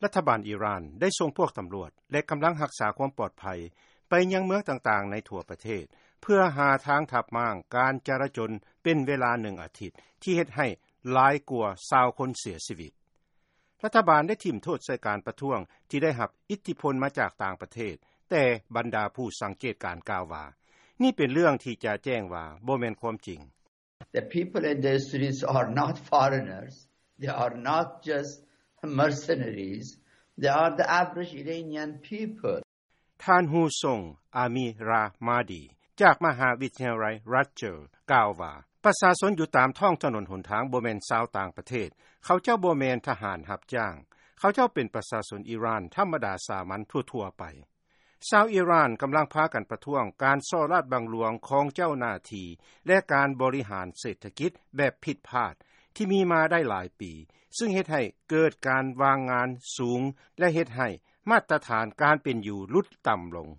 ລັດຖະບານອີຣານໄດ້ສົ່ງພວກຕຳຫຼວດ ແລະ ກຳລັງຮັກສາຄວາມປອດໄພ ໄປຍັງເມືອງຕ່າງໆໃນທົ່ວປະເທດ ເພື່ອຫາທາງທັບມ້າງການຈະລາຈົນ ເປັນເວລາໜຶ່ງອາທິດ ທີ່ເຮັດໃຫ້ຫຼາຍກວ່າຊາວຄົນເສຍຊີວິດ. ລັດຖະບານໄດ້ຖິ້ມໂທດໃສ່ການປະທ້ວງທີ່ໄດ້ຮັບອິດທິພົນມາຈາກຕ່າງປະເທດ, ແຕ່ບັນດາຜູ້ສັງເກດການກ່າວວ່າ ນີ້ເປັນເລື່ອງທີ່ຈະແຈ້ງວ່າບໍ່ແມ່ນຄວາມຈິງ. The people in the streets are not foreigners. They are not just mercenaries. They are the average Iranian people. ທ່ານ Husong Amirahmadi ຈາກມະຫາວິທະຍາໄລ Rutgers ກ່າວວ່າ ປະຊາຊົນຢູ່ຕາມທ້ອງຖະໜົນຫົນທາງບໍ່ແມ່ນຊາວຕ່າງປະເທດ, ເຂົາເຈົ້າບໍ່ແມ່ນທະຫານຮັບຈ້າງ, ເຂົາເຈົ້າເປັນປະຊາຊົນອີຣານທຳມະດາສາມັນທົ່ວໆໄປ. ຊາວອີຣານກຳລັງພາກັນປະທ້ວງການສໍ້ລາດບັງຫຼວງຂອງເຈົ້າໜ້າທີ່ ແລະ ການບໍລິຫານເສດຖະກິດແບບຜິດພາດທີ່ມີມາໄດ້ຫຼາຍປີ, ຊຶ່ງເຮັດໃຫ້ເກີດການວ່າງງານສູງ ແລະ ເຮັດໃຫ້ມາດຕະຖານການເປັນຢູ່ຫຼຸດຕ່ຳລົງ.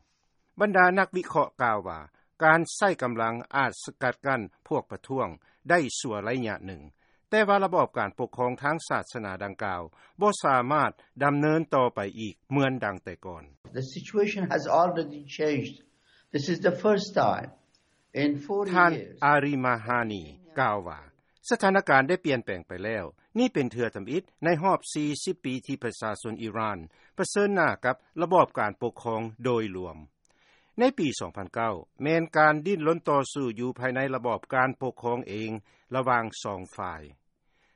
ບັນດານັກວິເຄາະກ່າວວ່າ ການໃຊ້ກຳລັງອາດສະກັດກັ້ນພວກປະທ້ວງໄດ້ຊົ່ວໄລຍະໜຶ່ງ, ແຕ່ວ່າລະບອບການປົກຄອງທາງສາສະໜາດັ່ງກ່າວບໍ່ສາມາດດຳເນີນຕໍ່ໄປອີກເໝືອນດັ່ງແຕ່ກ່ອນ. The situation has already changed. This is the first time in forty years. ທ່ານ ອາຣີມາຮານີ ກ່າວວ່າ ສະຖານະການໄດ້ປ່ຽນແປງໄປແລ້ວ. ນີ້ເປັນເທື່ອທຳອິດໃນຮອບສີ່ສິບປີທີ່ປະຊາຊົນອີຣານປະເຊີນໜ້າກັບລະບອບການປົກຄອງໂດຍລວມ. ໃນປີສອງພັນເກົ້າ ແມ່ນການດີ້ນລົນຕໍ່ສູ້ຢູ່ພາຍໃນລະບອບການປົກຄອງເອງລະຫວ່າງສອງຝ່າຍ.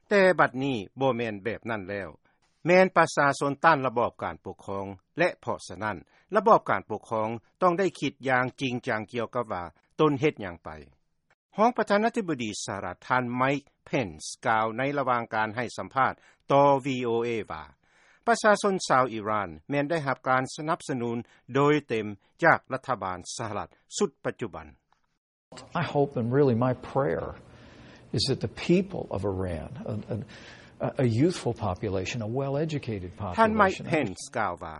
ແຕ່ບັດນີ້ບໍ່ແມ່ນແບບນັ້ນແລ້ວ. ແມ່ນປະຊາຊົນຕ້ານລະບອບການປົກຄອງ ແລະ ເພາະສະນັ້ນ ລະບອບການປົກຄອງຕ້ອງໄດ້ຄິດຢ່າງຈິງຈັງກ່ຽວກັບວ່າຕົນເຮັດຫຍັງໄປ. ຮອງປະທານາທິບໍດີສະຫະລັດ ທ່ານ Mike Pence ກ່າວໃນລະຫວ່າງການໃຫ້ສຳພາດຕໍ່ VOA ວ່າ ປະຊາຊົນຊາວອີຣານແມ່ນໄດ້ຮັບການສະໜັບສະໜູນໂດຍເຕັມຈາກລັດຖະບານສະຫະລັດຊຸດປັດຈຸບັນ. I hope, and really my prayer, is that the people of Iran, a, a, a youthful population, a well-educated population, ທ່ານ Mike Pence ກ່າວວ່າ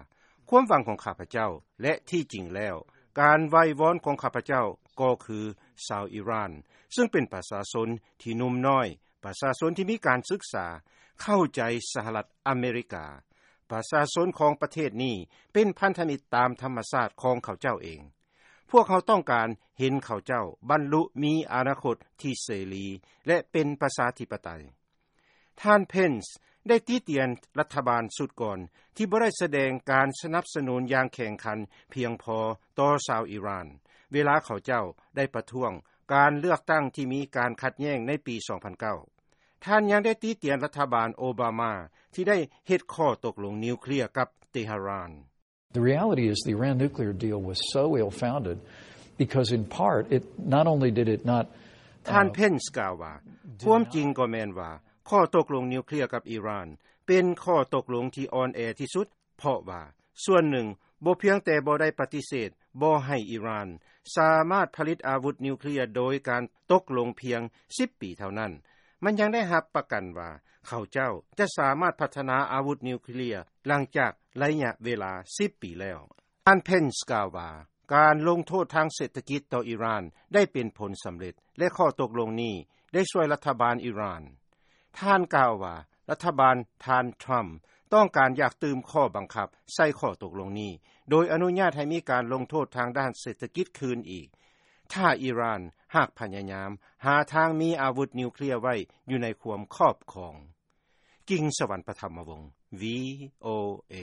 ຄວາມຫວັງຂອງຂ້າພະເຈົ້າ ແລະ ທີ່ຈິງແລ້ວ ການໄຫວ້ວອນຂອງຂ້າພະເຈົ້າກໍຄືຊາວອີຣານ ຊຶ່ງເປັນປະຊາຊົນທີ່ໜຸ່ມນ້ອຍ, ປະຊາຊົນທີ່ມີການສຶກສາ, ເຂົ້າໃຈສະຫະລັດອາເມລິກາ. ປະຊາຊົນຂອງປະເທດນີ້ເປັນພັນທະມິດຕາມທຳມະຊາດຂອງເຂົາເຈົ້າເອງ. ພວກເຮົາຕ້ອງການເຫັນເຂົາເຈົ້າບັນລຸມີອະນາຄົດທີ່ເສລີ ແລະ ເປັນປະຊາທິປະໄຕ. ທ່ານ Pence ໄດ້ຕິຕຽນລັດຖະບານຊຸດກ່ອນທີ່ບໍ່ໄດ້ສະແດງການສະໜັບສະໜູນຢ່າງແຂງຂັນພຽງພໍຕໍ່ຊາວອີຣານ ເວລາເຂົາເຈົ້າໄດ້ປະທ້ວງການເລືອກຕັ້ງທີ່ມີການຂັດແຍ່ງໃນປີສອງພັນເກົ້າ. ທ່ານຍັງໄດ້ຕິຕຽນລັດຖະບານໂອບາມາທີ່ໄດ້ເຮັດຂໍ້ຕົກລົງນິວເຄລຍກັບເຕຫະຣານ. The reality is the Iran nuclear deal was so ill-founded because in part it not only did it not, uh, ທ່ານ Pence ກ່າວວ່າ ຄວາມຈິງກໍແມ່ນວ່າ ຂໍ້ຕົກລົງນິວເຄລຍກັບອີຣານ ເປັນຂໍ້ຕົກລົງທີ່ອ່ອນແອທີ່ສຸດ ເພາະວ່າ ສ່ວນໜຶ່ງ ບໍ່ພຽງແຕ່ບໍ່ໄດ້ປະຕິເສດບໍ່ໃຫ້ອີຣານສາມາດຜະລິດອາວຸດນິວເຄລຍໂດຍການຕົກລົງພຽງສິບປີເທົ່ານັ້ນ, ມັນຍັງໄດ້ຮັບປະກັນວ່າ ເຂົາເຈົ້າຈະສາມາດພັດທະນາອາວຸດນິວເຄລຍຫຼັງຈາກໄລຍະເວລາສິບປີແລ້ວ. ທ່ານ Pence ກ່າວວ່າ ການລົງໂທດທາງເສດຖະກິດຕໍ່ອີຣານໄດ້ເປັນຜົນສຳເລັດ ແລະ ຂໍ້ຕົກລົງນີ້ໄດ້ຊ່ວຍລັດຖະບານອີຣານ. ທ່ານກ່າວວ່າ ລັດຖະບານທ່ານ Trump ຕ້ອງການຢາກຕື່ມຂໍ້ບັງຄັບໃສ່ຂໍ້ຕົກລົງນີ້ ໂດຍອະນຸຍາດໃຫ້ມີການລົງໂທດທາງດ້ານເສດຖະກິດຄືນອີກ ຖ້າອີຣານຫາກພະຍາຍາມຫາທາງມີອາວຸດນິວເຄລຍໄວ້ຢູ່ໃນຄວາມຄອບຄອງ. ກິງສະຫວັນ ປະທຳມະວົງ VOA.